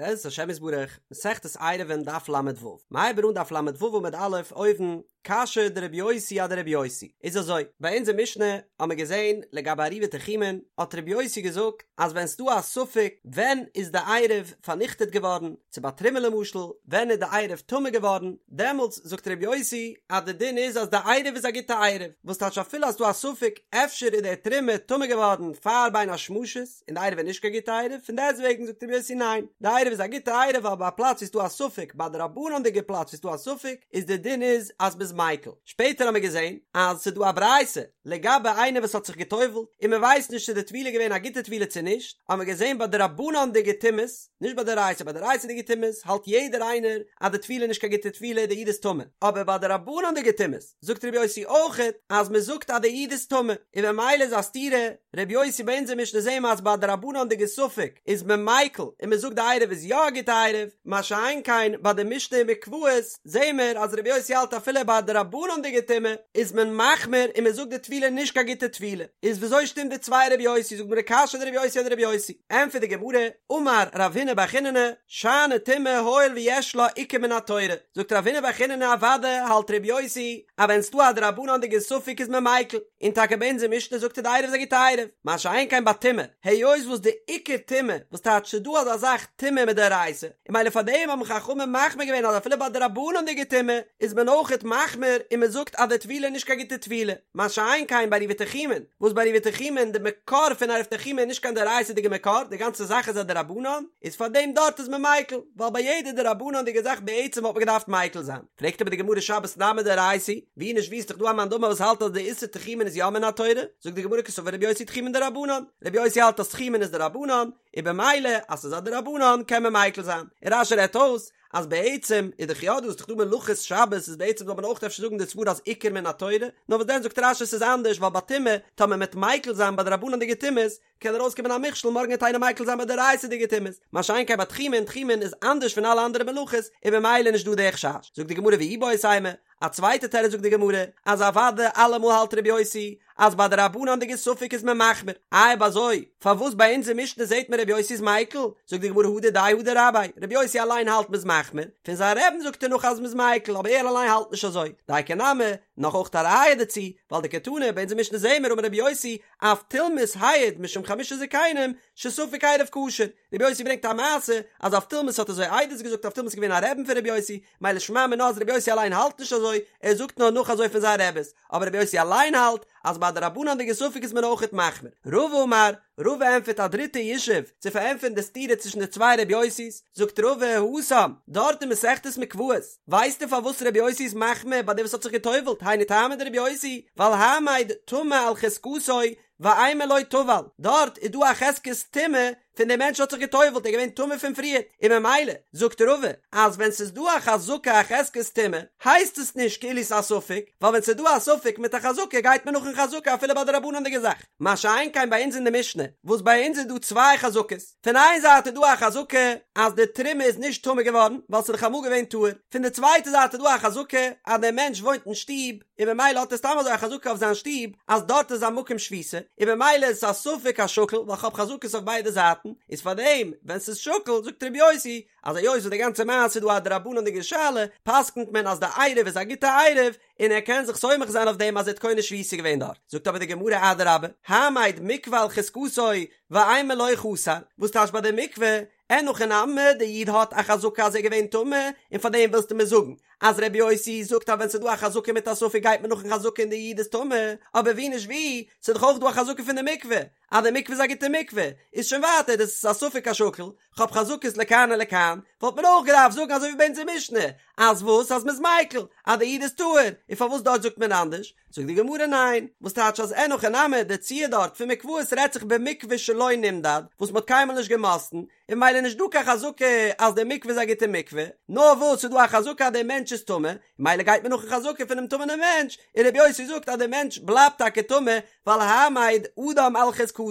בעזרת השם יתברך, מסכת עירובין דף ל"ו, מ'הייבט אן דף ל"ו עמוד א' אויבן, קשיא דרבי יוסי אדרבי יוסי, איז אזוי, ביי אונזער משנה האמער געזען לגבי עירובי תחומין, האט רבי יוסי געזאגט אז ווען ס'דא א ספק ווען איז די עירוב פארניכטעט געווארן, צו ביי תרומה למשל, ווען איז די עירוב טמא געווארן, דעמאלטס זאגט רבי יוסי אז די דין איז אז די עירוב איז א גוטע עירוב, וואס טייטש אפילו אז ס'דא א ספק אפשר איז די תרומה טמא געווארן פאר בין השמשות, און די עירוב איז נישט קיין גוטע עירוב, פון דעסטוועגן זאגט רבי יוסי ניין, די עירוב איז א גוטע עירוב ווייל ביי א פלאץ ווי ס'דא א ספק, ביי דרבנן'דיגע פלאץ ווי ס'דא א ספק, איז די דין איז אז מ'איז מיקל. שפעטער האמיר געזען אז ס'דא א ברייתא לגבי איינער וואס האט זיך גע'טובל'ט און מ'ווייסט נישט צו די טבילה איז געווען א גוטע טבילה צו נישט, האמיר געזען ביי דרבנן'דיגע טומאות, נישט ביי דאורייתא, ביי דאורייתא'דיגע טומאות האלט יעדער איינער אז די טבילה איז נישט קיין גוטע טבילה די איד איז טמא, אבער ביי דרבנן'דיגע טומאות זאגט רבי יוסי אויכעט אז מען זאגט אז די איד איז טמא, און ממילא איז א סתירה, רבי יוסי ביי אונזער משנה זעהן מיר אז ביי דרבנן'דיגע ספק איז מען מיקל און מען זאגט די עירוב איז יא א גוטע עירוב, מה שאין כן ביי די משנה אין מקוואות זעהן מיר אז רבי יוסי האלט אפילו ביי דרבנן'דיגע טומאה איז מען מחמיר און מען זאגט די טבילה נישט קיין גוטע טבילה, איז וויאזוי שטימט די צוויי רבי יוסי זאגט די גמרא קשיא דרבי יוסי אדרבי יוסי, ענטפערט די גמרא, אמר רב הונא בר חיננא, שאני טומאה הואיל ויש לה עיקר מן התורה, זאגט רב הונא בר חיננא אוודאי האלט רבי יוסי אז ווען ס'דא א דרבנן'דיגע ספק איז מען מיקל, און טאקע ביי אונזער משנה זאגט ער די עירוב איז א גוטע עירוב, מה שאין כן ביי טומאה, היות וואס די עיקר טומאה, וואס טייטש ס'דא אזא זאך טומאה מדאורייתא, און ממילא פאר דעם האבן חכמים מחמיר געווען אז אפילו ביי דרבנן'דיגע טומאה איז מען אויכעט מחמיר און מען זאגט אז די טבילה איז נישט קיין גוטע טבילה, מה שאין כן ביי עירובי תחומין, וואס ביי עירובי תחומין די מקור פון עירוב תחומין איז נישט קיין דאורייתא'דיגע מקור, די גאנצע זאך איז א דרבנן, איז פאר דעם דארט איז מען מיקל, ווייל ביי יעדע דרבנן'דיגע זאך בעצם וואלט מען געדארפט מיקל זיין. פרעגט אבער די גמרא שבת נמי דאורייתא, ווי נישט ווי איז דאך דא א מאן דאמר וואס האלט אז די איסור תחומין איז יא מן התורה, זאגט די גמרא קסבר רבי יוסי תחומין דרבנן, רבי יוסי האלט אז תחומין איז דרבנן, און במילא אז ס'איז א דרבנן קען מען מיקל זיין, און רש"י רעדט אויס אז בעצם איז דאך יא דא איז דאך דא מלאכות שבת איז בעצם זאל מען אויך אפשר זאגן די סברא אז עיקר מן התורה, נאר וואס דען זאגט רש"י ס'איז אנדערש ווייל ביי טומאה טאמער מ'עט מיקל זיין ביי דרבנן'דיגע טומאות קען ארויסקומען א מכשול מארגן וועט איינער מיקל זיין ביי דאורייתא'דיגע טומאות, מה שאין כן ביי תחומין, תחומין איז אנדערש פון אלע אנדערע מלאכות און במילא נישט דא די חשש, זאגט די גמרא ואיבעית אימא, א צווייטע תירוץ זאגט די גמרא אז אוודאי אלעמאל האלט רבי יוסי אז ביי דרבנן'דיגע ספק איז מען מחמיר, איי אויב אזוי פארוואס ביי אונזער משנה זעט מען רבי יוסי איז מיקל? זאגט די גמרא הא דידיה הא דרביה, רבי יוסי אליין האלט מ'איז מחמיר, פון זיין רבי'ן זאגט ער נאך אז מ'איז מיקל אבער ער אליין האלט נישט אזוי, דייקא נמי, נאך אויך א ראיה דערצו, ווייל דקתני ביי אונזער משנה זעהן מיר אמר רבי יוסי אבטולמוס העיד משום חמשה זקנים שספק עירוב כשר, רבי יוסי ברענגט א מעשה אז אבטולמוס האט אזוי עדות געזאגט אבטולמוס איז געווען א רבי'ן פון רבי יוסי, מילא שמע מינה אז רבי יוסי אליין האלט נישט אזוי, ער זאגט נאר נאך אזוי פון זיין רבי'ס, אבער רבי יוסי אליין האלט אז ביי דרבנן'דיגע ספק איז מען אויכעט מחמיר. רבא אמר, רבא ענטפערט א דריטע ישוב צו פארענטפערן די סתירה צווישן די צוויי רבי יוסי'ס, זאגט רבא התם, דארט אין מסכת מקוואות, ווייסטו פארוואס רבי יוסי איז מחמיר ביי דעם וואס האט זיך גע'טובל'ט, היינו טעמא דרבי יוסי, ווייל העמד טמא על חזקתו ואימא לא טבל, דארט איז דא א חזקת טומאה פון דער מענטש האט זיך גע'טובל'ט, ער איז געווען טמא פון פריערט, און ממילא זאגט רבא אז ווען ס'איז דא א חזקה א חזקת טומאה הייסט עס נישט כאילו ס'איז א ספק, ווייל ווען ס'איז דא א ספק מיט א חזקה גייט מען נאכן חזקה אפילו ביי דרבנן'דיגע זאך, מה שאין כן ביי אונז אין די משנה וואס ביי אונז איז דא צוויי חזקות, פון איין זייט איז דא א חזקה אז די תרומה איז נישט טמא געווארן ווייל ס'איז דאך אמאל געווען טהור, פון די צווייטע זייט איז דא א חזקה אז דער מענטש וואוינט אין שטוב, און במילא האט ער סתם אזוי א חזקה אויף זיין שטוב אז דארט איז א מקום שביתה, און במילא איז עס א ספק השקול ווייל כ'האב חזקות אויף ביידע זייטן, איז פארדעם ווען ס'איז שקול זאגט ר' יוסי אז היות וואס די גאנצע מעשה איז דא א דרבנן'דיגע שאלה פסק'נט מען אז די עירוב איז א גוטע עירוב און ער קען זיך סומך זיין אויף דעם אז ער האט קונה שביתה געווען דארט, זאגט אבער די גמרא אדרבה, העמד מקווה על חזקתו ואימא לא חסר, וואס טייטש ביי די מקווה אין הכי נמי, די איד האט א חזקה אז ער איז געווען טמא, און פאר דעם ווילסטו מיר זאגן אז רבי יוסי זאגט אז ווען ס'איז דא א חזקה מיט א ספק גייט מען נאכן חזקה און די איד איז טמא, אבער ווי נישט ווי, ס'איז דאך אויך דא א חזקה פון די מקווה, אז די מקווה איז א גוטע מקווה, איז שוין ווייטער דאס איז א ספק השקול, כ'האב חזקות לכאן ולכאן, וואלט מען אויך געדארפט זאגן אזוי ווי ביי אונזער משנה, אז וואס? אז מ'איז מיקל, אז די איד איז טהור, און פארוואס דארט זאגט מען אנדערש? זאגט די גמרא ניין, וואס טייטש אז אין הכי נמי, די ציור דארט פון מקוואות רעדט זיך במקווה שלא נמדד, וואס מ'האט קיינמאל נישט געמאסטן, און ממילא נישט דא קיין חזקה אז די מקווה איז א גוטע מקווה, נאר וואס ס'איז דא א חזקה אז דער מענטש איז טמא, ממילא גייט מען נאכן חזקה פונעם טמא'נעם מענטש, און רבי יוסי זאגט אז דער מענטש בלייבט טאקע טמא, ווייל העמד אדם על חזקתו,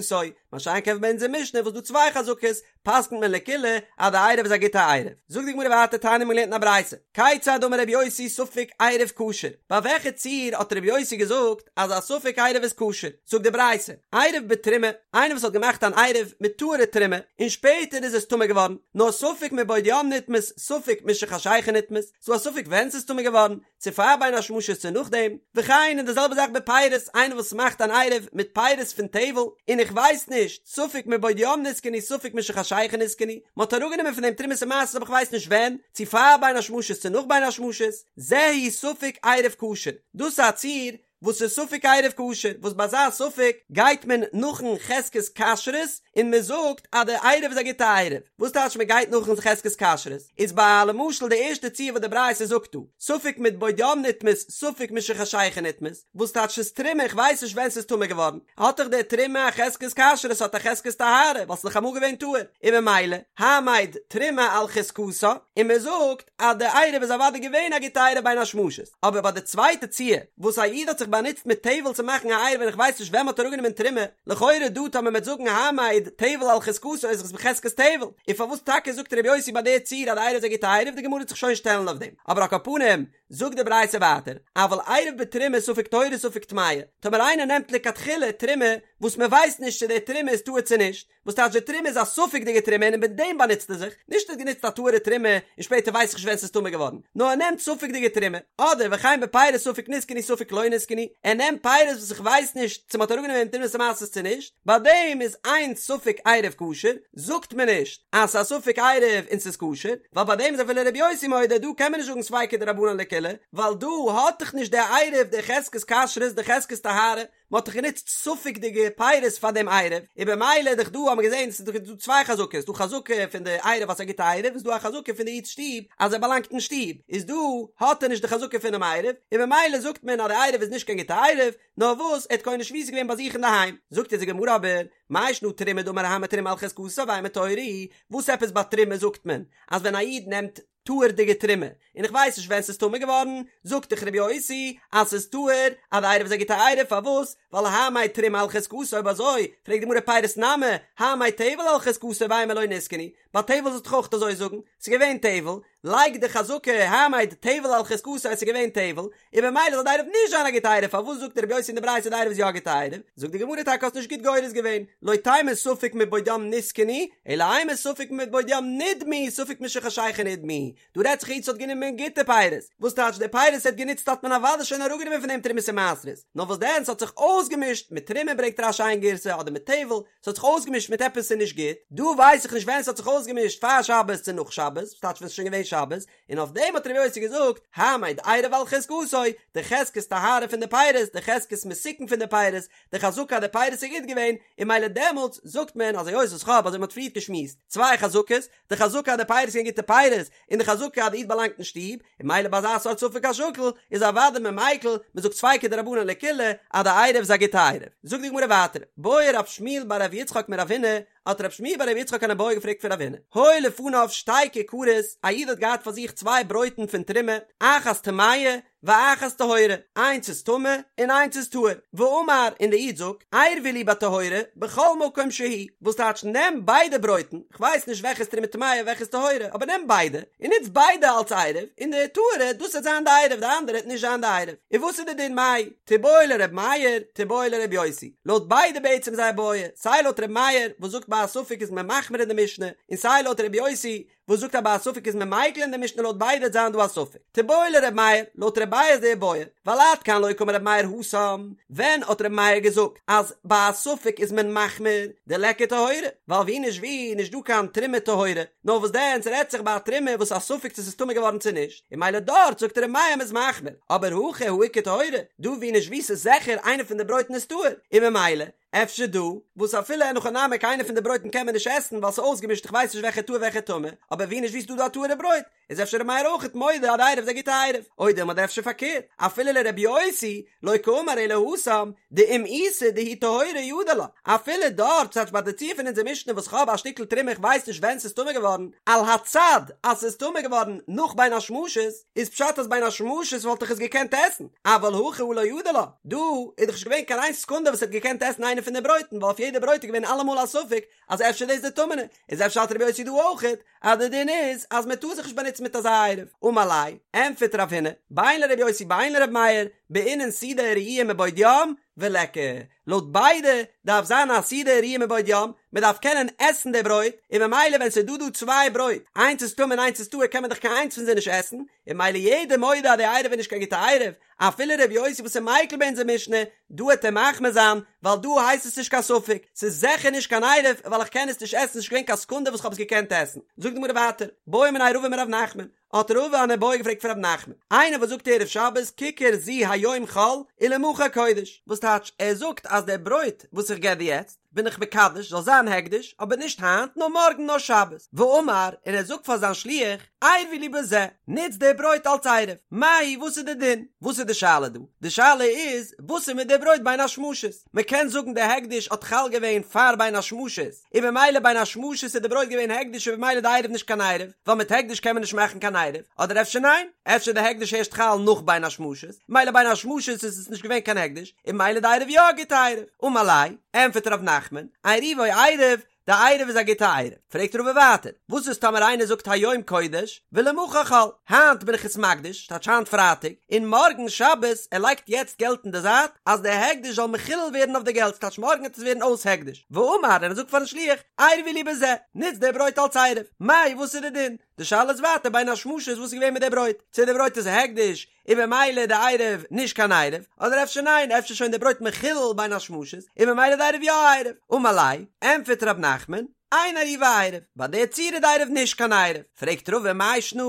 מה שאין כן ביי אונזער משנה וואס דא צוויי חזקות, פסק'נט מען לקולא אז די עירוב איז א גוטע עירוב. זאגט די גמרא ווייטער תניא מ'האט געלערנט אין א ברייתא, כיצד אמר רבי יוסי ספק עירוב כשר, ביי וועלכע ציור האט רבי יוסי געזאגט אז א ספק עירוב איז כשר, זאגט די ברייתא, עירב בתרומה, איינער וואס האט געמאכט אן עירוב מיט טהור'ע תרומה, און שפעטער איז עס טמא געווארן, נאר ספק מבעוד יום נטמאת, ספק משחשיכה נטמאת, ס'דא א ספק ווען ס'איז טמא געווארן, צו פאר בין השמשות צו נאכדעם, וכן און די זעלבע זאך בפירות, איינער וואס מאכט אן עירוב מיט פירות פון טבל, און איך ווייס נישט, ספק מבעוד יום נתקנו ספק משחשיכה נתקנו, מען האט אראפגענומען פון דעם תרומות ומעשרות אבער איך ווייס נישט ווען, צו פאר בין השמשות צו נאך בין השמשות, זהו ספק עירוב כשר, דאס איז א ציור וואס איז ספק עירוב כשר, וואס ביי אזא ספק גייט מען נאכן חזקת כשרות און מען זאגט אז די עירוב איז א גוטע עירוב, וואס טייטש מען גייט נאכן חזקת כשרות? איז ביי למשל די ערשטע ציור וואס די ברייתא זאגט דא, ספק מבעוד יום נטמאת ספק משחשיכה נטמאת, וואס טייטש ס'איז תרומה איך ווייס נישט ווען ס'איז טמא געווארן, האט דאך די תרומה א חזקת כשרות האט א חזקת טהרה ווייל ס'איז דאך אמאל געווען טהור, און ממילא העמד תרומה על חזקתה, און מען זאגט אז די עירוב איז אוודאי געווען א גוטע עירוב בין השמשות, אבער ביי די צווייטע ציור וואס א איד האט זיך באנוצט מיט טבל צו מאכן א עירוב און איך ווייס נישט ווען מ'האט אראפגענומען תרומה, לכאורה דא טאמער מ'וועט זאגן העמד טבל על חזקתו איז עס בחזקת טבל, און פארוואס טאקע זאגט ר' יוסי ביי די ציור אז די עירוב איז א גוטע עירוב, די גמרא וועט זיך שוין שטעלן אויף דעם, אבער על כל פנים זאגט די ברייתא ווייטער, אבל עירב בתרומה ספק טהורה ספק טמאה, טאמער איינער נעמט לכתחילה תרומה וואס מ'ווייסט נישט צו די תרומה איז טהור צו נישט, וואס טייטש די תרומה איז א ספק'דיגע תרומה און מיט דעם באנוצט ער זיך, נישט ער האט גענוצט א טהור'ע תרומה און שפעטער ווייס איך נישט ווען ס'איז טמא געווארן, נאר ער נעמט ספק'דיגע תרומה, אדער וכן בפירות ספק נתקנו ספק לא נתקנו, ער נעמט פירות וואס איך ווייס נישט צו מ'האט אראפגענומען תרומות ומעשרות צו נישט, ביי דעם איז אין ספק עירוב כשר, זאגט מען נישט אז ס'איז א ספק עירוב און ס'איז כשר, ווייל ביי דעם איז אפילו ר' יוסי מודה דא קען מען נישט זאגן ספיקא דרבנן לקולא, ווייל דא האט דאך נישט דער עירוב די חזקת כשרות די חזקת טהרה, מען האט דאך גענוצט ספק'דיגע פירות פאר דעם עירוב, און במילא איז דאך דא האט מען געזען ס'איז דאך דא צוויי חזקות, ס'דא חזקה פון די עירוב אז ס'איז א גוטע עירוב, און ס'דא א חזקה פון די איד'ס שטוב אז ער באלאנגט אין שטוב, איז דא האט ער נישט די חזקה פונעם עירוב, און במילא זאגט מען אז די עירוב איז נישט קיין גוטע עירוב, נאר וואס ער האט קונה שביתה געווען ביי זיך אינדערהיים. זאגט אונז די גמרא אבער, מאי שנא תרומה דאמר העמד תרומה על חזקתה ואימא טהורה היא, וואס עפעס ביי תרומה זאגט מען אז ווען א איד נעמט טהור'דיגע תרומה, און איך ווייס נישט ווען ס'איז טמא געווארן, זאגט דאך רבי יוסי אז ס'איז טהור, אז די עירוב איז א גוטע עירוב, פארוואס? ווייל העמד תרומה על חזקתה, אויב אזוי, פרעגט די גמרא פירות נמי, העמד טבל על חזקתו ואימא לא נתקנו, ביי טבל זאלסטו דאך אויך אזוי זאגן, ס'איז געווען טבל, לייג די חזקה העמד טבל על חזקתו אז ס'איז געווען טבל, און במילא זאל די עירוב נישט זיין א גוטע עירוב, פארוואס זאגט רבי יוסי אין די ברייתא די עירוב איז יא א גוטע עירוב? זאגט די גמרא טאקע האסט נישט גוט גורס געווען, לא תימא ספק מבעוד יום נתקנו, אלא אימא ספק מבעוד יום נדמו, ספק משחשיכה נדמו, דא רעדט זיך א איד וואס האט גענומען גוטע פירות, וואס טייטש די פירות ער האט גענוצט האט מען אוודאי שוין אראפגענומען פון דעם תרומות ומעשרות, נאר וואס דען ס'האט זיך אויסגעמישט מיט תרומה ברענגט רש"י איין גירסא אדער מיט טבל, ס'האט זיך אויסגעמישט מיט עפעס ס'איז נישט גוט, דא ווייס איך נישט ווען ס'האט זיך אויסגעמישט פאר שבת צו נאך שבת, וואס טייטש ווען ס'איז שוין געווען שבת, און אויף דעם האט רבי יוסי געזאגט, העמד עירוב על חזקתו, די חזקת טהרה פון די פירות, די חזקת מתוקן פון די פירות, די חזקה אז די פירות איז גוט געווען, און מילא דעמאלטס זאגט מען אז היות וואס כ'האב אזוי מ'האט פריערט געשמועסט, צוויי חזקות, די חזקה אז די פירות זענען גוטע פירות, און די חזקה אז די איד באלאנגט אין שטוב, און מילא ביי אזא סארט ספק השקול, איז אוודאי מען מיקל, מ'זאגט ספיקא דרבנן לקולא, אז די עירוב איז א גוטע עירוב. זאגט די גמרא ווייטער, בעי רב שמואל בר רב יצחק מרב הונא, האט רב שמואל בר רב יצחק אן איבעיא געפרעגט פון רב הונא, היו לפניו שתי כיכרות, א איד האט געהאט פאר זיך צוויי ברויטן פון תרומה, אחת טמאה ואחת טהורה, איינס איז טמא און איינס איז טהור, ואמר, און די איד זאגט, עירבו לי בטהורה בכל מקום שהוא, וואס טייטש נעם ביידע ברויטן, כ'ווייס נישט וועלכע איז תרומה טמאה וועלכע איז טהורה, אבער נעם ביידע, און נוץ ביידע אלס עירוב, און די טהורה, דאס וועט זיין די עירוב, די אנדערע וועט נישט זיין די עירוב. און וואס איז די דין מאי? תיבעי לר' מאיר, תיבעי לר' יוסי. לויט ביידע בעצם זייער בעיא, סיי לויט ר' מאיר וואס זאגט ביי א ספק איז מען מחמיר אין די משנה, און סיי לויט ר' יוסי וואס זאגט אז ביי א ספק איז מען מיקל אין די משנה לויט ביידע וועט זיין דא א ספק. תיבעי לר' מאיר, לויט ר' מאיר איז די בעיא, ווייל עד כאן לא קאמר ר' מאיר התם, ווען האט ר' מאיר געזאגט אז ביי א ספק איז מען מחמיר, דליכא טהורה, ווייל ווי נישט ווי נישט דא קיין תרומה טהורה, נאר וואס דען ס'רעדט זיך ביי א תרומה וואס א ספק צו ס'איז טמא געווארן צו נישט, און מילא דארט זאגט ר' מאיר מ'איז מחמיר, אבער הכא הא איכא טהורה, דא ווי נישט ווי ס'איז זיכער איינע פון די ברויטן איז טהור, און ממילא אפשר דא, וואס אפילו אין הכי נמי קיינע פון די ברויטן קען מען נישט עסן ווייל ס'איז אויסגעמישט איך ווייס נישט וועלכע טהור וועלכע טמא, אבער ווי נישט ווי ס'איז דא דא א טהור'ע ברויט, איז אפשר ר' מאיר אויכעט מודה אז די עירוב איז א גוטע עירוב, או דילמא אדער אפשר פארקערט, אפילו לר' יוסי, לא קאמר אלא התם, דאם איתא דהיא טהורה ידע לה, אפילו דארט, ס'טייטש ביי די ציור פון אונזער משנה וואס כ'האב א שטיקל תרומה איך ווייס נישט ווען ס'איז טמא געווארן, על הצד אז ס'איז טמא געווארן נאך בין השמשות, איז פשט אז בין השמשות וואלט איך עס געקענט עסן, אבל הכא הא לא ידע לה, דא איז דאך נישט געווען קיין איין סעקונדע וואס ער האט געקענט עסן איינע. איינע פון די ברויטן, ווייל אויף יעדע ברויט איז געווען אלעמאל א ספק אז אפשר דאס די טמא'נע, איז אפשר האלט רבי יוסי דא אויכעט אז די דין איז אז מען טאר זיך נישט באנוצן מיט אזא עירוב, אמר ליה, ענטפערט רב הונא, בין לרבי יוסי בין לרבי מאיר, בעינן סעודה הראויה מבעוד יום, וליכא, לויט ביידע דארף זיין א סעודה הראויה מבעוד יום, מען דארף קענען עסן די ברויט, און ממילא ווען ס'איז דא דא צוויי ברויט, איינס איז טמא און איינס איז טהור קען מען דאך קיין איינס פון זיי נישט עסן, און ממילא יעדער מודה אז די עירוב איז נישט קיין גוטע עירוב, אפילו ר' יוסי וואס איז מיקל ביי אונזער משנה, דא העט ער מחמיר זיין, ווייל דא הייסט עס נישט קיין ספק, ס'איז זיכער נישט קיין עירוב ווייל איך קען עס נישט עסן, ס'נישט געווען קיין סעקונדע וואס כ'האב עס געקענט עסן. זאגט די גמרא ווייטער, בעא מיניה רבא מרב נחמן, האט רבא אן איבעיא געפרעגט פון רב נחמן, איינער וואס זאגט ערב שבת כיכר זו היום חול ולמחר קודש, וואס טייטש ער זאגט אז דער ברויט וואס איך געב דיר יעצט בין איך מקדש זאל זיין הקדש, אבער נישט היינט נאר מארגן נאר שבת, ואמר, און ער זאגט פאר זיין שליח, עירבו לי בזה, נוץ די ברויט אלס עירוב, מהו וואס איז די דין? וואס איז די שאלה דא? די שאלה איז וואס איז מיט די ברויט בין השמשות? מען קען זאגן די הקדש האט חל געווען פאר בין השמשות, און במילא בין השמשות איז די ברויט געווען הקדש און במילא די עירוב נישט קיין עירוב, ווייל מיט הקדש קען מען נישט מאכן קיין עירוב, אדער אפשר ניין? אפשר די הקדש ערשט חל נאך בין השמשות, מילא בין השמשות איז עס נישט געווען קיין הקדש, און במילא די עירוב יא א גוטע עירוב. אמר ליה, ענפערט ר' נחמן, עירובו עירוב, די עירוב איז א גוטע עירוב. פרעגט רבא ווייטער, וואס איז טאמער איינער זאגט היום קודש ולמחר חול, היינט בין איך עס מקדיש, טייטש היינט פרייטאג, און מארגן שבת, ער לייגט יעצט געלט אין די זייט, אז די הקדש זאל מחולל ווערן אויף די געלט, טייטש מארגן וועט עס ווערן אויס הקדש, ואמר, און ער זאגט פארן שליח, עירבו לי בזה, נוץ די ברויט אלס עירוב, מאי וואס איז די דין? די שאלה איז ווייטער בין השמשות וואס איז געווען מיט די ברויט, צו די ברויט איז הקדש, און במילא די עירוב נישט קיין עירוב, אדער אפשר ניין, אפשר שוין די ברויט מחולל בין השמשות, און במילא די עירוב יא עירוב. אמר ליה, ענטפערט ר' נחמן, אין עירובו עירוב, ביי די צורה איז די עירוב נישט קיין עירוב. פרעגט רבא מאי שנא,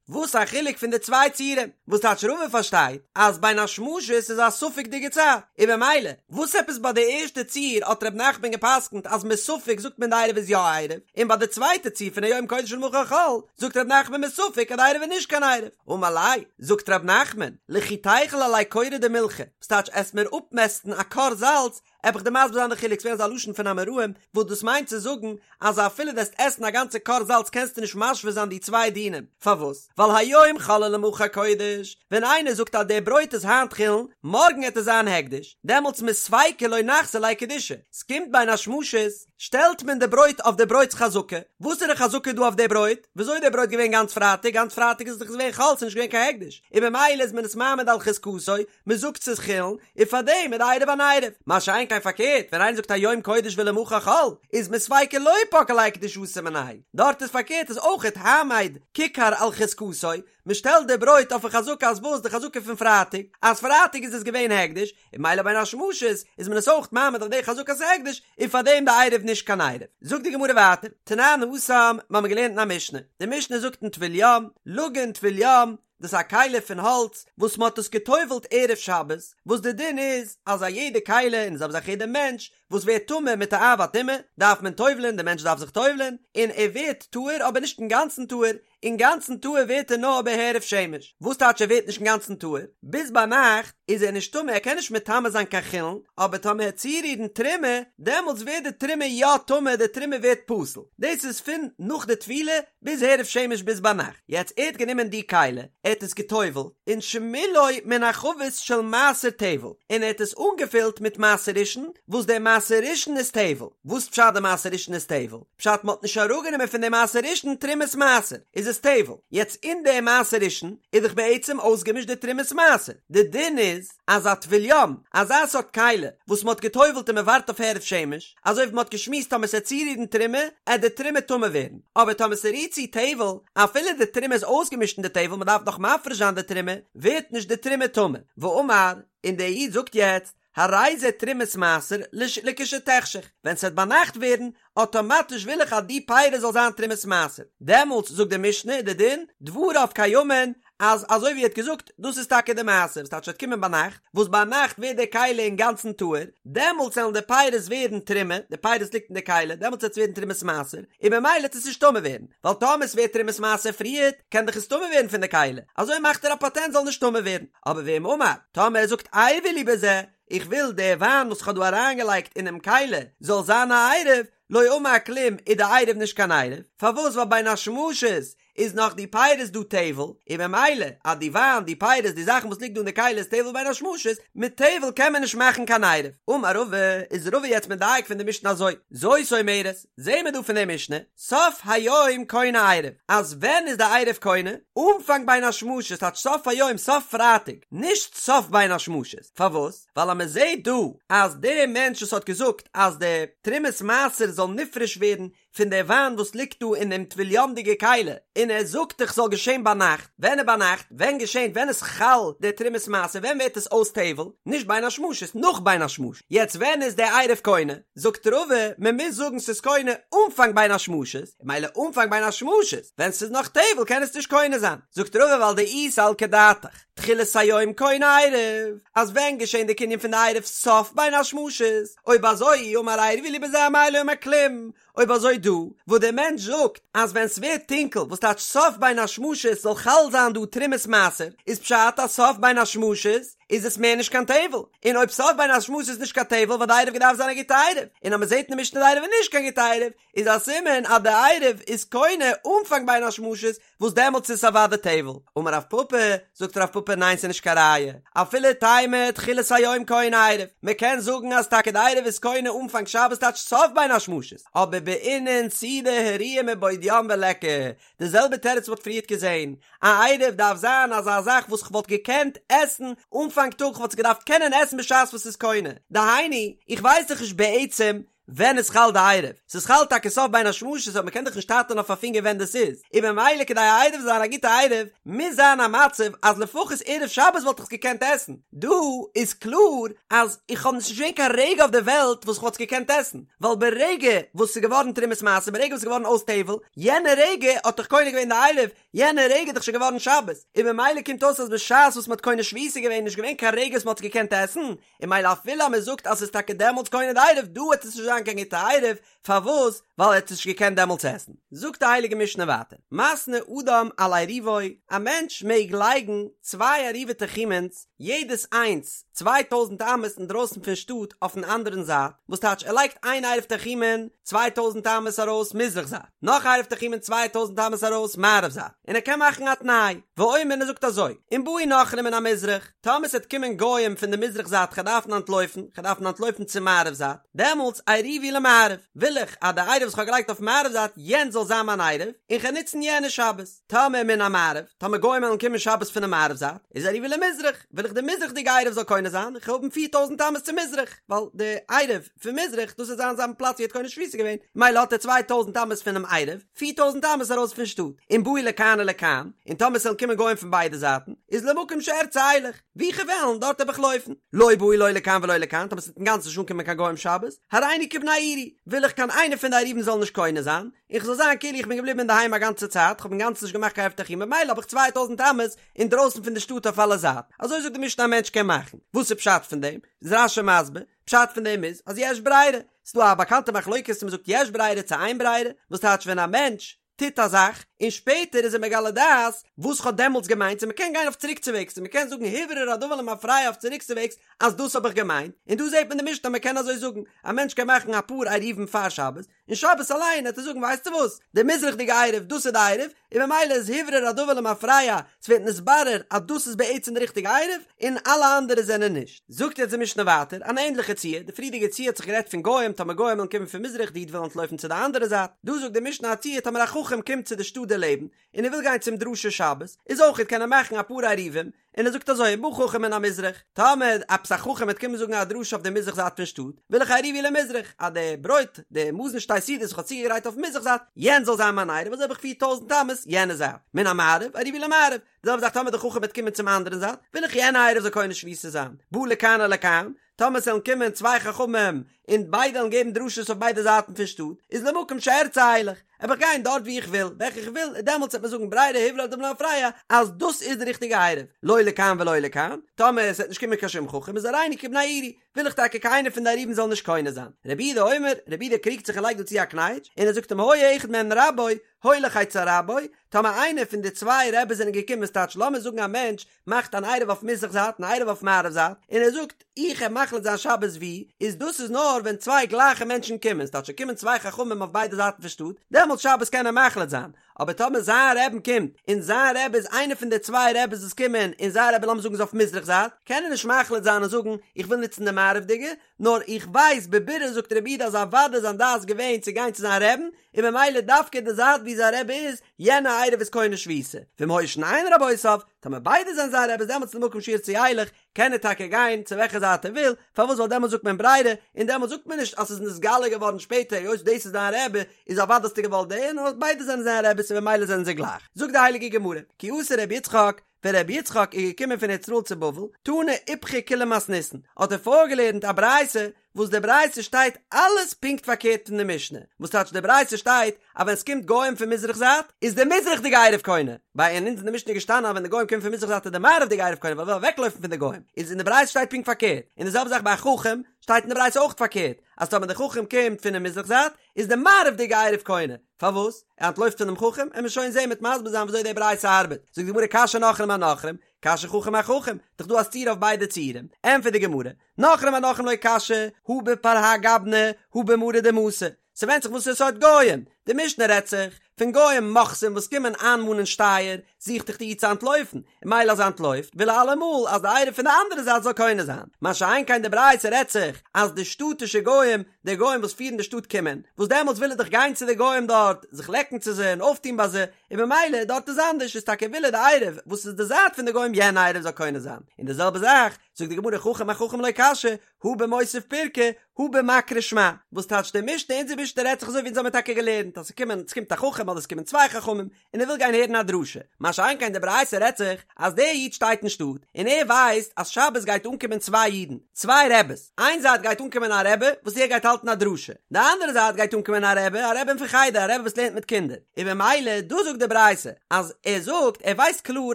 וואס א חילוק פון די צוויי ציורים? וואס טייטש רבא פארשטייט אז בין השמשות איז א ספק'דיגע צייט, און במילא וואס עפעס ביי די ערשטע ציור האט ר' נחמן גע'פסק'נט אז מספק זאגט מען די עירוב איז יא עירוב, און ביי די צווייטע ציור פון היום קודש ולמחר חול זאגט ר' נחמן מספק אז די עירוב איז נישט קיין עירוב. אמר ליה, זאגט ר' נחמן, לכי תיכול עלי כורא דמילחא, וואס טייטש עסט מיר אפמעסטן א כור זאלץ, עב איך דיר מסביר זיין די חילוק, ס'געווען אזא לשון פון אמוראים, וואס דאס מיינט צו זאגן, אז אפילו וועסט עסן א גאנצע כור זאלץ קענסטו נישט משווה זיין די צוויי דינים, פארוואס? ווייל היום חול ולמחר קודש, ווען איינער זאגט אז דער ברויט איז היינט חולין, מארגן עט עס זיין הקדש, דעמאלטס מספיקא לא נחזי ליה קדושה, ס'קומט בין השמשות, שטעלט מען די ברויט אויף די ברויט'ס חזקה, וואס איז די חזקה דא אויף די ברויט? וויאזוי איז די ברויט געווען גאנץ פרייטאג? גאנץ פרייטאג איז עס דאך געווען חול, ס'איז נישט געווען קיין הקדש, און במילא איז מען עס מעמיד על חזקתו, מען זאגט ס'איז חולין, און פארדעם איז די עירוב אן עירוב. מה שאין כן פארקערט, ווען איינער זאגט היום קודש ולמחר חול, איז מספיקא לא פקעא ליה קדושתיה מיניה, דארט איז פארקערט איז אויכעט העמד כיכר על חזקתו, מען שטעלט די ברויט אויפן חזקה אז וואס? די חזקה פון פרייטאג, אז פרייטאג איז עס געווען הקדש, און ממילא בין השמשות איז מען עס אויך מעמיד אויף די חזקת ההקדש, און פאר דעם די עירוב נישט קיין עירוב. זאגט די גמרא ווייטער, תנן התם, מיר האבן געלערנט אין א משנה, די משנה זאגט אין טבול יום, לגין טבול יום, דאס איז א כלי פון האלץ וואס מען האט עס גע'טובל'ט ערב שבת, וואס די דין איז אז א יעדע כלי און זעלבע זאך יעדע מענטש וואס ווערט טמא מיט א אב הטומאה דארף מען טובל'ען, די מענטש דארף זיך טובל'ען, און ער ווערט טהור אבער נישט אינגאנצן טהור, אינגאנצן טהור ווערט ער נאר בהערב שמש, וואס טייטש ער ווערט נישט אינגאנצן טהור? ביז ביינאכט איז ער נישט טמא ער קען נישט מטמא זיין קיין חולין, אבער טאמער ער וועט צורירן תרומה דעמאלטס ווערט די תרומה יא טמא די תרומה ווערט פסול, דאס איז פון נאך די טבילה ביז הערב שמש ביז ביינאכט, יעצט ער האט גענומען די כלי ער האט עס געטובלט און שמילאו מן החבית של מעשר טבל און ער האט עס אנגעפילט מיט מעשר ראשון וואס דער מעשר ראשון איז טבל, וואס פשט די מעשר ראשון איז טבל? פשט מ'האט נישט אראפגענומען פון די מעשר ראשון תרומת מעשר איז עס טבל, יעצט אין די מעשר ראשון איז דאך בעצם אויסגעמישט די תרומת מעשר, די דין איז אז א טבול יום, אזא סארט כלי וואס מ'האט געטובלט און מ'ווארט אויף הערב שמש, אזוי ווי מ'האט געשמועסט טאמער ס'עט צורירן תרומה עט די תרומה טמא ווערן, אבער טאמער ס'רירט צו טבל, אפילו די תרומה איז אויסגעמישט אין די טבל מ'דארף נאך מפריש זיין די תרומה, ווערט נישט די תרומה טמא, ואמר, און דער איד זאגט יעצט, הרי זה תרומת מעשר לכשתחשך, ווען ס'וועט ביינאכט ווערן, אטאמאטיש וויל איך אז די פירות זאל זיין תרומת מעשר, דעמאלטס זאגט די משנה איז די דין, דבריו קיימין, אז אזוי ווי ער האט געזאגט, דאס איז טאקע די מעשר, וואס טייטש ס'וועט קומען ביינאכט, וואס ביינאכט ווערט די כלי אינגאנצן טהור, דעמאלטס וועלן די פירות ווערן תרומה, די פירות ליגט אין די כלי, דעמאלטס וועט עס ווערן תרומת מעשר, און ממילא וועט עס נישט טמא ווערן, ווייל טאמער עס ווערט תרומת מעשר פריערט, קען דאך עס טמא ווערן פון די כלי, אזוי מאכט ער א פאטענט זאל נישט טמא ווערן. אבער ואם אמר, טאמער ער זאגט עירבו לי בזה, איך וויל די וויין וואס איך האב דא אריינגעלייגט אינעם כלי זאל זיין א עירוב, לא אמר כלום איז די עירוב נישט קיין עירוב, פארוואס ווייל בין השמשות איז נאך די פירות דא טבל, און ממילא אז די וויין, די פירות, די זאכן וואס ליגט דא אין די כלי איז טבל בין השמשות, מיט טבל קען מען נישט מאכן קיין עירוב. אמר רבא, איז רבא יעצט מדייק פון די משנה אזוי, זאת אומרת, זעהן מיר דא פון די משנה, סוף היום קונה עירוב, אז ווען איז די עירוב קונה? אנפאנג בין השמשות, טייטש סוף היום, סוף פרייטאג, נישט סוף בין השמשות, פארוואס? ווייל אז מען זעהט דא אז דער מענטש וואס האט געזאגט אז די תרומת מעשר זאל נפרש ווערן פון די וויין וואס ליגט דא אין דעם טבול יום'דיגע כלי, און ער זאגט דאך ס'זאל געשען ביינאכט, ווען איז ביינאכט? ווען געשענט? ווען איז חל די תרומת מעשר? ווען ווערט עס אויס טבל? נישט בין השמשות, נאך בין השמשות. יעצט ווען איז די עירוב קונה? זאגט רבא, מען מוז זאגן ס'איז קונה אנפאנג בין השמשות, מילא אנפאנג בין השמשות, ווען ס'איז נאך טבל קען עס נישט קונה זיין. זאגט רבא ווייל דאי סלקא דעתך. תחילת היום קונה עירוב, אז ווען געשען די קנין פון די עירוב סוף בין השמשות, אויב אזוי אי אמר עירבי לי בזה אמאי לא אמר כלום, אויב אזוי דא וואס דער מענטש זאגט אז ווען ס'ווערט טונקל וואס טייטש סוף בין השמשות זאל חל זיין דא תרומת מעשר, איז פשט אז סוף בין השמשות איז עס מער נישט קיין טבל, און אויב סוף בין השמשות איז נישט קיין טבל וואלט די עירוב געדארפט זיין א גוטע עירוב, און אז מ'זעט אין די משנה די עירוב איז נישט קיין גוטע עירוב, איז א סימן אז די עירוב איז קונה אנפאנג בין השמשות וואס דעמאלטס איז עס אוודאי טבל. אמר רב פפא, זאגט רב פפא ניין ס'איז נישט קיין ראיה, אפילו תימא תחילת היום קונה עירוב, מ'קען זאגן אז טאקע די עירוב איז קונה אנפאנג שבת טייטש סוף בין השמשות, אבער בעינן סעודה הראויה מבעוד יום וליכא, די זעלבע תירוץ מ'האט פריערט געזען, א עירוב דארף זיין אזא זאך וואס כ'וואלט געקענט עסן אנפאנג טאג, כ'וואלט עס געדארפט קענען עסן בשעת וואס ס'איז קונה, דהיינו, איך ווייס דאך נישט בעצם ווען איז חל די עירוב? ס'איז חל טאקע סוף בין השמשות אבער מ'קען דאך נישט טייטען אויף א פינגער ווען דאס איז, און ממילא כדי א עירוב זאל זיין א גוטע עירוב מוז זיין א מצב אז לפחות ערב שבת וואלט איך עס געקענט עסן, דא איז קלאר אז איך האב נישט געזען קיין רגע אויף די וועלט וואס כ'וואלט עס געקענט עסן, ווייל ברגע וואס ס'איז געווארן תרומת מעשר ברגע וואס ס'איז געווארן אויס טבל, יענע רגע האט דאך קונה געווען די עירוב, יענע רגע איז דאך שוין געווארן שבת, און ממילא קומט אויס אז בשעת וואס מ'האט קונה שביתה געווען איז נישט געווען קיין רגע וואס מ'האט עס געקענט עסן, און מילא אפילו אז מען זאגט אז ס'איז טאקע דעמאלטס קונה די עירוב דא וועט עס נישט זיין קיין גוטע עירוב, פארוואס? ווייל ער האט עס נישט געקענט דעמאלטס עסן. זאגט די הייליגע משנה ווייטער, מתנה אדם על עירובו, א מענטש מעג לייגן צוויי עירובי תחומין'ס, יעדעס איינס 2000 אמות אינדרויסן פון שטאט אויפן אנדערן זייט, וואס טייטש ער לייגט איין עירוב תחומין 2000 אמות ארויס מזרח זייט, נאך עירוב תחומין 2000 אמות ארויס מערב זייט, און ער קען מאכן א תנאי, ואומר און ער זאגט אזוי, אם באו נכרים מן המזרח, טאמער ס'עט קומען גוים פון די מזרח זייט כ'על דארפן אנטלויפן, כ'על דארפן אנטלויפן צום מערב זייט, דעמאלטס עירובי למערב, וויל איך אז די עירוב וואס כ'האב געלייגט אויף מערב זייט יענץ זאל זיין מיין עירוב, און כ'על נוצן יענע שבת. טאמער מן המערב, טאמער גוים וועלן קומען שבת פונעם מערב זייט, איז עירובי למזרח, וויל איך די מזרח'דיגע עירוב זאל קונה זיין, כ'על האבן 4000 אמות צו מזרח, ווייל די עירוב פון מזרח, דאס וועט זיין זיין פלאץ ווי ער האט קונה שביתה געווען, מילא האט ער 2000 אמות פונעם עירוב, 4000 אמות ארויס פון שטאט, אם באו לכאן ולכאן, און טאמער ס'וועלן קומען גוים פון ביידע זייטן, איז למקום שארצה אלך, וואו כ'וועל וועלן, דארט וועל איך לויפן. לא באו לא לכאן ולא לכאן, טאמער ס'וועט אינגאנצן נישט אנקומען קיין גוים שבת, הריני כבני עירי, וויל איך קיין איינער פון די עירובין זאל נישט קונה זיין, און כ'זאל זיין כאילו איך בין געבליבן אינדערהיים א גאנצע צייט, כ'האב אינגאנצן נישט געמאכט קיין עירוב תחומין, ממילא האב איך 2000 אמות אינדרויסן פון די שטאט אויף אלע זייטן. אזוי זאגט די משנה א מענטש קען מאכן. וואס איז פשט פון דעם? איז רש"י מסביר, פשט פון דעם איז אז יש ברירה, ס'דא א באקאנטע מחלוקת צו מ'זאגט יש ברירה צו אין ברירה, וואס טייטש ווען א מענטש טוט א זאך און שפעטער איז ער מגלה דעת וואס כ'האב דעמאלטס געמיינט צו מ'קען גיין אויף צוריקצווועגס צו מ'קען זאגן הוברר הדבר למפרע אויף צוריקצווועגס אז דאס האב איך געמיינט, און דא זעט מען די משנה אז מ'קען אזוי זאגן, א מענטש קען מאכן אפאר עירובין פאר שבת, און שבת אליין העט ער זאגן ווייסטו וואס, די מזרח'דיגע עירוב דאס איז די עירוב, און ממילא איז הוברר הדבר למפרע, ס'ווערט נתברר אז דאס איז בעצם די ריכטיגע עירוב, און אלע אנדערע זענען נישט. זאגט יעצט די משנה ווייטער אן ענדליכע ציור, די פריערדיגע ציור האט זיך גערעדט פון גוים, טאמער גוים וועלן קומען פון מזרח די איד וויל אנטלויפן צו די אנדערע זייט, דא זאגט די משנה א ציור טאמער א חכם קומט צו די שטאט דערלעבן, און ער וויל גיין צום דרשה שבת, איז אויכעט קען ער מאכן אפאר עירובין, און ער זאגט אזוי אם בא חכם מן המזרח, טאמער עפעס א חכם וועט קומען זאגן א דרשה אויף די מזרח זייט פון שטאט, וויל איך עירובי למזרח, אז די ברויט, די מזון שתי סעודות וואס איך האב צוגעגרייט אויפן מזרח זייט, יענץ זאל זיין מיין עירוב, אזוי האב איך 4000 אמות יענע זייט, מן המערב, עירובי למערב, די זעלבע זאך טאמער די חכם וועט קומען צום אנדערן זייט, וויל איך יענע עירוב זאל קונה שביתה זיין, בא לכאן ולכאן, טאמער ס'וועלן קומען צוויי חכמים און ביידע וועלן געבן דרשות אויף ביידע זייטן פון שטאט, איז למקום שארצה אלך, וועל איך גיין דארט וואו איך וויל, וועלכע איך וויל, און דעמאלטס וועט מען זאגן ברירה הוברר הדבר למפרע אז דאס איז די ריכטיגע עירוב, לא לכאן ולא לכאן, טאמער עס וועט נישט קומען קיין שום חכם איז הריני כבני עירי. וויל איך טאקע קיינער פון די עירובין זאל נישט קונה זיין. רבי יהודה אומר, רבי יהודה קריגט זיך און לייגט דא צו א קנייטש, און ער זאגט אם היה אחד מהן רבו, הולך אצל רבו, טאמער איינער פון די צוויי רעבעס זענען געקומען ס'טייטש לאמיר זאגן א מענטש מאכט אן עירוב אויף מזרח זייט און א עירוב אויף מערב זייט און ער זאגט איך העב מחליט זיין שבת ווי איז דאס איז נאר ווען צוויי גלייכע מענטשן קומען ס'טייטש ס'קומען צוויי חכמים אויף ביידע זייטן פון שטאט דעמאלטס שבת קען ער מחליט זיין אבער טאמער זיין רעבן קומט און זיין רעבע איז איינער פון די צוויי רעבעס וואס קומען און זיין רעבע לאמיר זאגן איז אויף מזרח זייט קען ער נישט מחליט זיין און זאגן איך וויל נוצן די מערב'דיגע נאר איך ווייס בבירור זאגט רבי יהודה אז אוודאי איז זיין דעת געווען צו גיין צו זיין רעבן און ממילא דווקא די זייט ווי זיין רבי איז, יענע עירוב איז קונה שביתה, ואם היו שניהן רבותיו, טאמער ביידע זענען זיין רעבעס דעמאלטס למקום שירצה ילך, קען ער טאקע גיין צו וועלכע זייט ער וויל, פארוואס ווייל דעמאלטס זאגט מען ברירה, און דעמאלטס זאגט מען נישט אז ס'איז נתגלה געווארן שפעטער היות דאס איז דיין רבי איז אוודאי האסטו געוואלט דעם, נאר ביידע זענען זיין רעבעס און ממילא זענען זיי גלייך. זאגט די הייליגע גמרא, כי אתא רבי יצחק, ווען רבי יצחק איז געקומען פון ארץ ישראל צו בבל, תנא איפכא כולה מתניתין, האט ער פארגעלערנט א ברייתא, וואס די ברייתא שטייט אלעס פונקט פארקערט פון די משנה, וואס טייטש די ברייתא שטייט אז ווען עס קומט גוים פון מזרח זייט איז די מזרח'דיגע עירוב קונה, ביי אונז אין די משנה איז געשטאנען אז ווען די גוים קומען פון מזרח זייט איז די מערב'דיגע עירוב קונה ווייל ער וויל אוועקלויפן פון די גוים, איז אין די ברייתא שטייט פונקט פארקערט, און די זעלבע זאך ביי א חכם שטייט אין די ברייתא אויך פארקערט, אז טאמער די חכם קומט פונעם מזרח זייט איז די מערב'דיגע עירוב קונה, פארוואס? ער אנטלויפט פונעם חכם? עמיר שוין זעהן מ'עט מסביר זיין וויאזוי די ברייתא ארבעט. זאגט די גמרא קשיא נכרים אנכרים, קשיא חכם אחכם, דאך דא א סתירה אויף ביידע ציורים. ענטפערט די גמרא, נכרים אנכרים לא קשיא, הא בפרהק גבנא, הא במרא דמתא. ס'ווענדט זיך וואסערע סארט גויים. די משנה רעדט זיך פון גויים מוכסים וואס קומען איינמאנען שטייער, זוכט דאך די איד צו אנטלויפן, און ממילא אז ער אנטלויפט וויל ער אלעמאל אז די עירוב פון די אנדערע זייט זאל קונה זיין. מה שאין כן די ברייתא רעדט זיך אז די שטאטישע גויים, די גויים וואס פירן די שטאט קומען, וואס דעמאלטס וויל ער דאך גיין צו די גויים דארט, זיך לעקן צו זיי און אויפטון ביי זיי, און ממילא דארט איז אנדערש, איז טאקע וויל ער די עירוב וואס איז די זייט פון די גויים יענע עירוב זאל קונה זיין. און די זעלבע זאך זאגט די גמרא חכם אחכם לא קשיא, הא במותיב פירקא, הא במקרי שמע, וואס טייטש די משנה, אונזער משנה רעדט זיך אזוי ווי אונז האמיר טאקע געלערנט אז ס'קומען, ס'קומט א חכם אדער ס'קומען צוויי חכמים, און ער וויל גיין הערן א דרשה, מה שאין כן די ברייתא רעדט זיך אז דער איד שטייט אין שטאט און ער ווייסט אז שבת גייט אנקומען צוויי אידן, צוויי רעבעס, איין זייט גייט אנקומען א רעבע וואס ער גייט האלטן א דרשה, די אנדערע זייט גייט אנקומען א רעבע, א רעבע פון חדר, א רעבע וואס לערנט מיט קינדער, און במילא דא זאגט די ברייתא אז ער זאגט ער ווייסט קלאר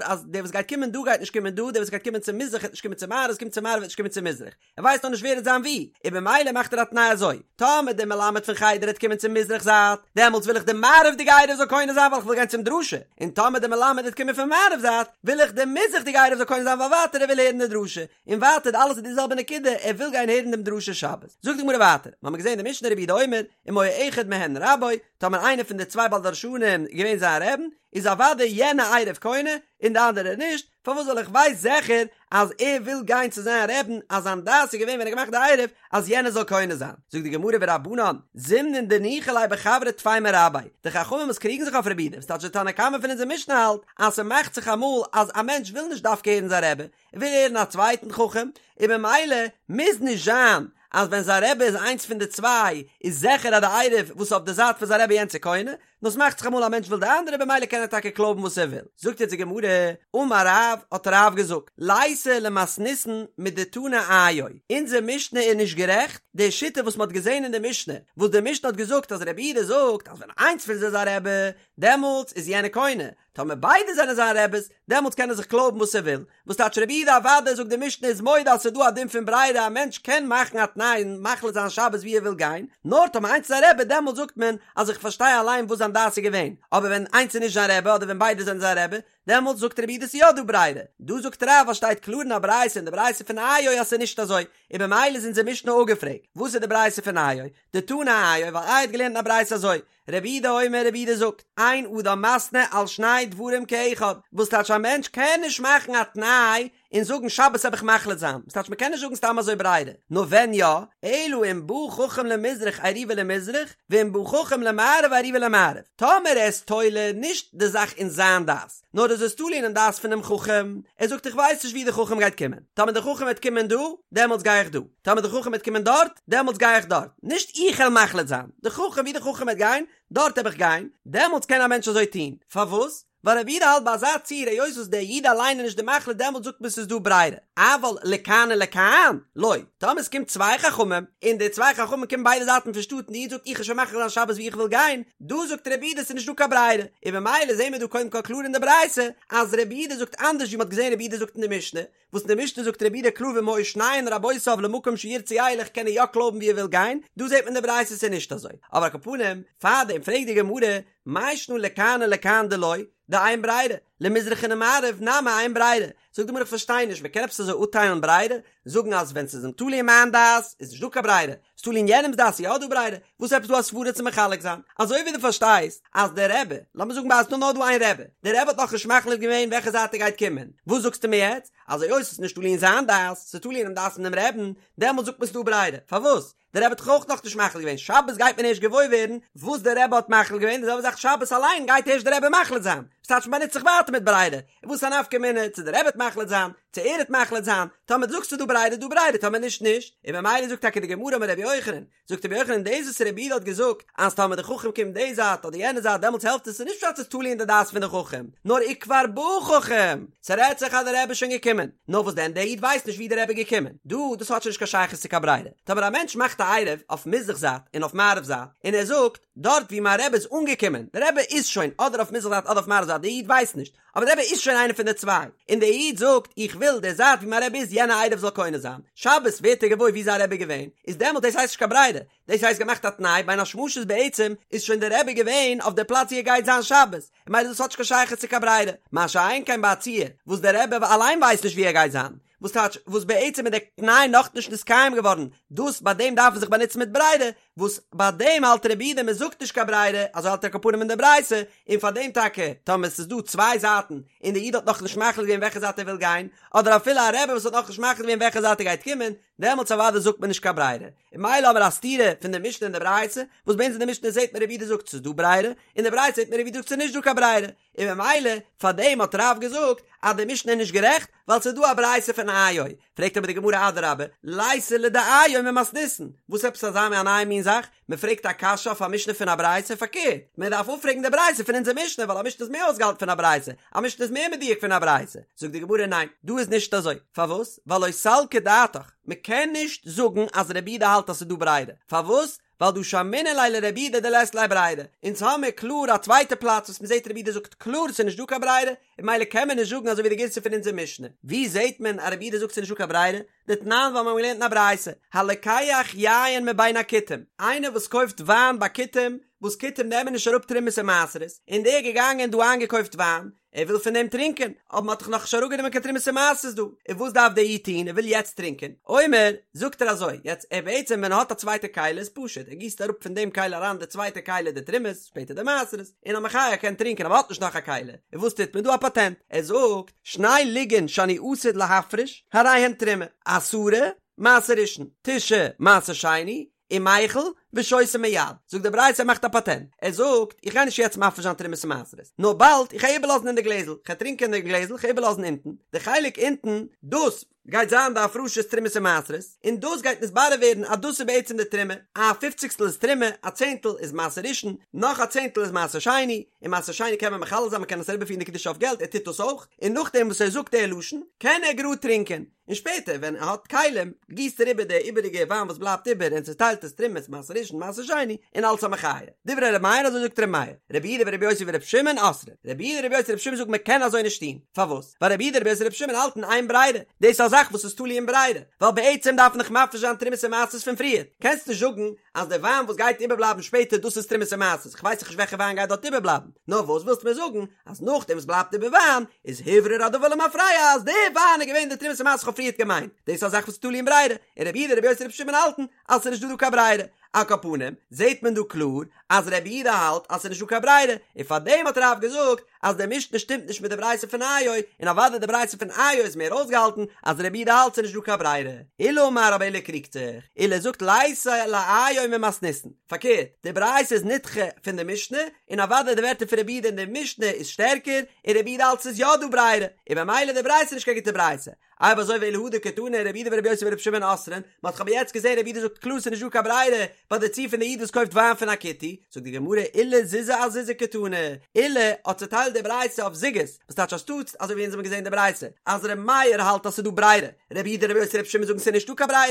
אז דער וואס גייט קומען דא גייט נישט קומען דא, דער וואס גייט קומען צו מזרח וועט נישט קומען צו מערב, וואס קומט צו מערב וועט נישט קומען צו מזרח. ער ווייסט נאך נישט ווער וועט זיין וואו, און במילא מאכט ער א תנאי אזוי, טאמער דער מלמד פון חדר העט קומען צום מזרח זייט, דעמאלטס וויל איך די מערב'דיגע עירוב זאל קונה זיין ווייל איך וויל גיין צום דרשה, און טאמער דער מלמד העט קומען פון מערב זייט, וויל איך די מזרח'דיגע עירוב זאל קונה זיין ווייל ווייטער ער וויל הערן די דרשה, און ווייטער אלעס איז די זעלבע נקודה, ער וויל גיין הערן דעם דרשה שבת. זאגט די גמרא ווייטער, מ'האמיר געזען די משנה רבי יהודה אומר, אם היה אחד מהן רבו, טאמער איינער פון די צוויי בעל דרשנים איז געווען זיין רעבן, איז אוודאי יענע עירוב קונה, און די אנדערע נישט, פארוואס ווייל איך ווייס זיכער אז ער וויל גיין צו זיין רעבן אז זיין דעת איז געווען ווען ער האט געמאכט די עירוב אז יענער זאל קונה זיין, זאגט די גמרא ורבנן זימנין דניחא ליה בחבריה טפי מרביה, די חכמים וואס קריגן זיך אויף רבי יהודה, ס'טייטש די תנא קמא פון אונזער משנה האלט אז ס'מאכט זיך אמאל אז א מענטש וויל נישט דווקא הערן זיין רבי, ער וויל הערן א צווייטן חכם, און במילא מוז נישט זיין אז ווען זיין רבי איז איינס פון די צוויי איז זיכער אז די עירוב וואס איז אויף די זייט פון זיין רבי יענץ איז קונה, נאר ס'מאכט זיך אמאל א מענטש וויל די אנדערע במילא קען ער טאקע קלויבן וואס ער וויל. זאגט יעצט די גמרא, אמר רב, האט רב געזאגט, ליתא למתניתין מדתנא איו, אונזער משנה איז נישט גערעכט, די שיטה וואס מ'האט געזען אין די משנה, וואס די משנה האט געזאגט אז רבי יהודה זאגט אז ווען איינס פון זיי איז א רבי, דעמאלטס איז יענער קונה, טאמער ביידע זענען זיין רעבעס, דעמאלטס קען ער זיך קלויבן וואס ער וויל. וואס טייטש רבי יהודה אוודאי זאגט די משנה איז מודה אז ס'איז דא א דין פון ברירה א מענטש קען מאכן א תנאי און מחליט זיין שבת ווי ער וויל גיין, נאר טאמער איינס איז א רבי דעמאלטס זאגט מען אז איך פארשטיי אליין וואס זיין דעת איז געווען, אבער ווען איינס איז נישט זיין רבי אדער ווען ביידע זענען זיין רבי, דעמאלטס זאגט רבי יהודה ס'איז יא דא ברירה. דא זאגט רב אז שטייט קלאר אין א ברייתא אין די ברייתא פון איו אז ס'איז נישט אזוי, און במילא איז אונזער משנה אפגעפרעגט. וואס איז די ברייתא פון איו? דתנא איו, ווייל איו האט געלערנט אין א ברייתא אזוי, רבי יהודה אומר רבי יהודה זאגט, אין אדם מתנה על שני דברים כאחד, וואס טייטש א מענטש קען נישט מאכן א תנאי און זאגן שבת העב איך מחליט זיין, וואס טייטש מ'קען נישט זאגן סתם אזוי ברירה, נאר ווען יא, אלא אם בא חכם למזרח עירובו למזרח, ואם בא חכם למערב עירובו למערב, טאמער ער איז תולה נישט די זאך אין זיין דעת, נאר ער איז עס תולה אינעם דעת פונעם חכם, ער זאגט איך ווייס נישט ווי די חכם גייט קומען, טאמער די חכם וועט קומען דא, דעמאלטס גיי איך דא. טאמער די חכם וועט קומען דארט, דעמאלטס גיי איך דארט, נישט איך העל מחליט זיין, די חכם ווי די חכם וועט גיין, דארט העב איך גיין, דעמאלטס קען א מענטש אזוי טון, פארוואס? ווייל רבי יהודה האלט ביי אזא ציור היות וואס דער איד אליין איז נישט די מחליט דעמאלט זאגט מען ס'איז דא ברירה, אבל לכאן ולכאן לא, טאמער ס'קומט צוויי חכמים, און די צוויי חכמים קומען ביידע זייטן פון שטאט און די איד זאגט איך וועל שוין מחליט זיין שבת ווי איך וויל גיין, דא זאגט רבי יהודה ס'איז נישט דא קיין ברירה, און ממילא זעהן מיר דא קודם כל קלאר אין די ברייתא אז רבי יהודה זאגט אנדערש ווי מ'האט געזעהן רבי יהודה זאגט אין די משנה, וואס אין די משנה זאגט רבי יהודה קלאר ואם היו שניהן רבותיו למקום שירצה ילך קען ער יא קלויבן ווי ער וויל גיין, דא זעהט מען אין די ברייתא ס'איז נישט אזוי, אבער על כל פנים, פארדעם פרעגט די גמרא, מאי שנא לכאן ולכאן דלא, דאין ברירה, למזרח ולמערב נמי אין ברירה, זאגט די גמרא איך פארשטיי נישט, מ'קען עפעס אזוי אפטיילן ברירה, זאגן אז ווען ס'איז אים תלוי אין מיין דעת איז נישט דא קיין ברירה, ס'איז תלוי אין יענעמ'ס דעת איז יא דא ברירה, וואס עפעס דא א סברה צו מחלק זיין? אזוי ווי דו פארשטייסט אז דער רבי, לאמיר זאגן ביי אז ס'איז נאר דא איין רבי, דער רבי האט נאכנישט מחליט געווען וועלכע זייט ער גייט קומען, וואס זאגסטו מיר יעצט? אז היות ס'איז נישט תלוי אין זיין דעת, ס'איז תלוי אינעם דעת פון דעם רעבן, דעמאלט זאגט מען ס'איז דא ברירה, פארוואס? דער רבי האט דאך אויך נאכנישט מחליט געווען, שבת גייט מען ערשט געוואויר ווערן וואס דער רבי האט מחליט געווען, די זעלבע זאך שבת אליין גייט ערשט דער רבי מחליט זיין, וואס טייטש מ'באנוצט זיך ווייטער מיט ברירה, און וואס א נפקא מינה צו דער רבי וועט מחליט זיין, צו ער וועט מחליט זיין, טאמער דו זאגסט ס'איז דא ברירה איז דא ברירה טאמער נישט נישט, און ממילא זאגט טאקע די גמרא אמר רבי יוחנן, זאגט רבי יוחנן דאס וואס רבי יהודה האט געזאגט אז טאמער די חכם קומט די זייט אדער יענע זייט דעמאלטס העלפט עס איז נישט פשט ס'איז תלוי אין די דעת פון די חכם, נאר וכבר בא חכם, ס'רעדט זיך אז די רבי איז שוין געקומען, נאר וואס דען דער איד ווייסט נישט ווי די רבי איז געקומען, דא דאס האט שוין נישט קיין שייכות צו קיין ברירה, טאמער א מענטש מאכט א עירוב אויף מזרח זייט און אויף מערב זייט און ער זאגט דארט ווי מיין רבי איז אנגעקומען, די רבי איז שוין אדער אויף מזרח זייט אדער אויף מערב זייט די איד ווייסט נישט, אבער די רבי איז שוין איינער פון די צוויי, און דער איד זאגט איך וויל די זייט ווי מיין רבי איז יענע עירוב זאל קונה זיין, שבת ווערט ער געוואויר ווי זיין רבי איז געווען, איז דעמאלט דאס הייסט נישט קיין ברירה, דאס הייסט געמאכט א תנאי בין השמשות בעצם איז שוין די רבי געווען אויף די פלאץ ווי ער גייט זיין שבת, און ממילא דאס האט נישט קיין שייכות צו קיין ברירה, מה שאין כן ביי א ציור וואס דער רבי אליין ווייסט נישט ווי ער גייט זיין, וואס טייטש וואס בעצם איז דער תנאי נאכנישט נתקיים געווארן, דאס ביי דעם דארף מען זיך באנוצן מיט ברירה, וואס ביי דעם האלט רבי יהודה מען זאגט נישט קיין ברירה, אזוי האלט ער על כל פנים אין די ברייתא, און פאר דעם טאקע טאמער עס איז דא צוויי זייטן און דער איד האט נאכנישט מחליט געווען וועלכע זייט ער וויל גיין, אדער אפילו א רבי וואס האט נאכנישט מחליט געווען וועלכע זייט ער גייט קומען, דעמאלטס אוודאי זאגט מען נישט קיין ברירה, און ממילא האבן מיר א סתירה פון די משנה און די ברייתא, וואס ביי אונז אין די משנה זעט מען רבי יהודה זאגט ס'איז דא ברירה, אין די ברייתא זעט מען רבי יהודה זאגט ס'איז נישט דא קיין ברירה, און ממילא פאר דעם האט רב געזאגט אז די משנה איז נישט גערעכט ווייל ס'איז דא א ברייתא פון איו, פרעגט אבער די גמרא אדרבה, ליתא לדאיו ממתניתין, וואס עפעס אזא מין א נייע מין זאך, מען פרעגט א קשיא אויף א משנה פון א ברייתא, פארקערט, מען דארף אפפרעגן די ברייתא פון אונזער משנה ווייל א משנה איז מער אויסגעהאלטן פון א ברייתא, א משנה איז מער מדויק פון א ברייתא, זאגט די גמרא ניין, דא איז נישט אזוי, פארוואס? ווייל לא סלקא דעתך, מען קען נישט זאגן אז רבי יהודה האלט אז ס'איז דא ברירה, פארוואס? ווייל דהא שמעינן ליה לרבי יהודה דלית ליה ברירה, אונז האמיר קלאר א צווייטע פלאץ וואס מ'זעט רבי יהודה זאגט קלאר ס'איז נישט דא קיין ברירה, און ממילא קען מען נישט זאגן אזוי ווי די גירסא פון אונזער משנה. ווי זעט מען אז רבי יהודה זאגט ס'איז נישט דא קיין ברירה? דתנן ווייל מיר האבן געלערנט אין א ברייתא, הלוקח יין מבין הכותים, איינער וואס קויפט וויין ביי כותים, וואס כותים נעמען נישט אראפ תרומות און מעשרות, און דער איז געגאנגען דא איינגעקויפט וויין, ער וויל פון דעם טרינקען, אבער מען האט דאך נאכנישט אראפגענומען קיין תרומות און מעשרות דא, און וואס דארף דער איד טון, ער וויל יעצט טרינקען, אומר, זאגט ער אזוי, יעצט ער בעצם ווען ער האט א צווייטע כלי איז פשוט, ער גיסט אראפ פון דעם כלי אריין די צווייטע כלי די תרומות, שפעטער די מעשרות, און א מחיה ער קען טרינקען אבער האט נישט נאך א כלי, און וואס טוט מען דא א פאטענט, ער זאגט, שני לוגין שאני עתיד להפריש, הרי הן תרומה, עשרה, מעשר ראשון, תשעה, מעשר שני, ומיחל, ושותה מיד, זאגט די ברייתא ער מאכט א פאטענט, ער זאגט, איך גיי נישט יעצט מפריש זיין תרומות און מעשרות, נאר באלד, איך גיי איבערלאזן אין די גלעזל, איך גיי טרינקען אין די גלעזל, איך גיי איבערלאזן אונטן, די חלק אונטן, דאס גייט זיין די הפרשת תרומות און מעשרות, און דאס גייט נתברר ווערן אז דאס איז בעצם די תרומה, א פופציגסטל איז תרומה, א צענטל איז מעשר ראשון, נאך א צענטל איז מעשר שני, און מעשר שני קען מען מחלל זיין, מען קען עס אריבערפירן די קדושה אויף געלט, ער טוט דאס אויך, און נאכדעם וואס ער זאגט די לשון, קען ער גראד טרינקען. און שפעטער ווען ער האט כלים גיסט ער איבער די איבעריגע וויין וואס בלייבט איבער און צעטיילט עס תרומות מעשר ראשון מעשר שני און אלס א מחיה. דברי ר' מאיר אזוי זאגט ר' מאיר, רבי יהודה ורבי יוסי ורבי שמעון אוסרין, רבי יהודה רבי יוסי רבי שמעון זאגן מען קען אזוי נישט טון, פארוואס? ווייל רבי יהודה רבי יוסי רבי שמעון האלטן אין ברירה, דאס איז א זאך וואס איז תלוי אין ברירה, ווייל בעצם דארף מען דאך מפריש זיין תרומות און מעשרות פון פריער, קענסט נישט זאגן אז די וויין וואס גייט איבערבלייבן שפעטער דאס איז תרומות און מעשרות, איך ווייס דאך נישט וועלכע וויין גייט דארט איבערבלייבן, נאר וואס ווילסטו מיר זאגן אז נאכדעם וואס בלייבט איבער וויין איז הוברר הדבר למפרע אז די וויין איז געווען די תרומות ומעשרות איך האב פריערט געמיינט, דאס איז א זאך וואס איז תלוי אין ברירה, און רבי יהודה רבי יוסי רבי שמעון האלטן אז ס'איז נישט דא דא קיין ברירה, על כל פנים זעהט מען דא קלאר אז רבי יהודה האלט אז ס'איז נישט דא קיין ברירה, און פארדעם האט רב געזאגט אז די משנה שטימט נישט מיט די ברייתא פון איו, און אוודאי די ברייתא פון איו איז מער אויסגעהאלטן אז רבי יהודה האלט ס'איז נישט דא קיין ברירה. עולא אמר אבער עולא קריגט זיך, עולא זאגט ליתא לאיו ממתניתין, פארקערט, די ברייתא איז נדחה פון די משנה, און אוודאי די ווערטער פון רבי יהודה אין די משנה איז שטערקער, און רבי יהודה האלט ס'איז יא דא ברירה, און במילא די ברייתא איז נישט קיין גוטע ברייתא. אויב אזוי ואלא הא דקתני רבי יהודה ורבי יוסי ורבי שמעון אוסרין, מ'האט דאך אבער יעצט געזען רבי יהודה זאגט קלאר ס'איז נישט דא קיין ברירה ביי די ציור פון די איד וואס קויפט וויין פון א כותי, זאגט די גמרא עולא זוזי אזוזי קתני, עולא האט צוטיילט. די ברייתא אויף זוגות, וואס טייטש אנשטאטס אזוי ווי אונז האבן געזען די ברייתא אז ר' מאיר האלט אז ס'איז דא ברירה, ר' יהודה ר' יוסי ר' שמעון זאגן ס'איז נישטא קיין ברירה,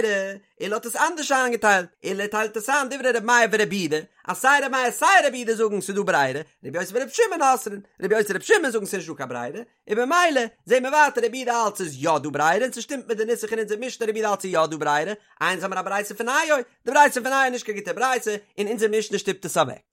עולא האט עס אנדערש איינגעטיילט, עולא טיילט עס איין דברי ר' מאיר ור' יהודה, אז סיי ר' מאיר סיי ר' יהודה זאגן ס'איז דא ברירה, ר' יוסי ור' שמעון אוסרין, ר' יוסי ר' שמעון זאגן ס'איז נישטא קיין ברירה, און במילא זעהן מיר ווייטער רבי יהודה האלט ס'איז יא דא ברירה און ס'שטימט מיט די נוסח אין אונזער משנה רבי יהודה האלט ס'איז יא דא ברירה, איי אונז האמיר א ברייתא פון איו, די ברייתא פון איו איז נישט קיין גוטע ברייתא און אונזער משנה שטופט עס אוועק.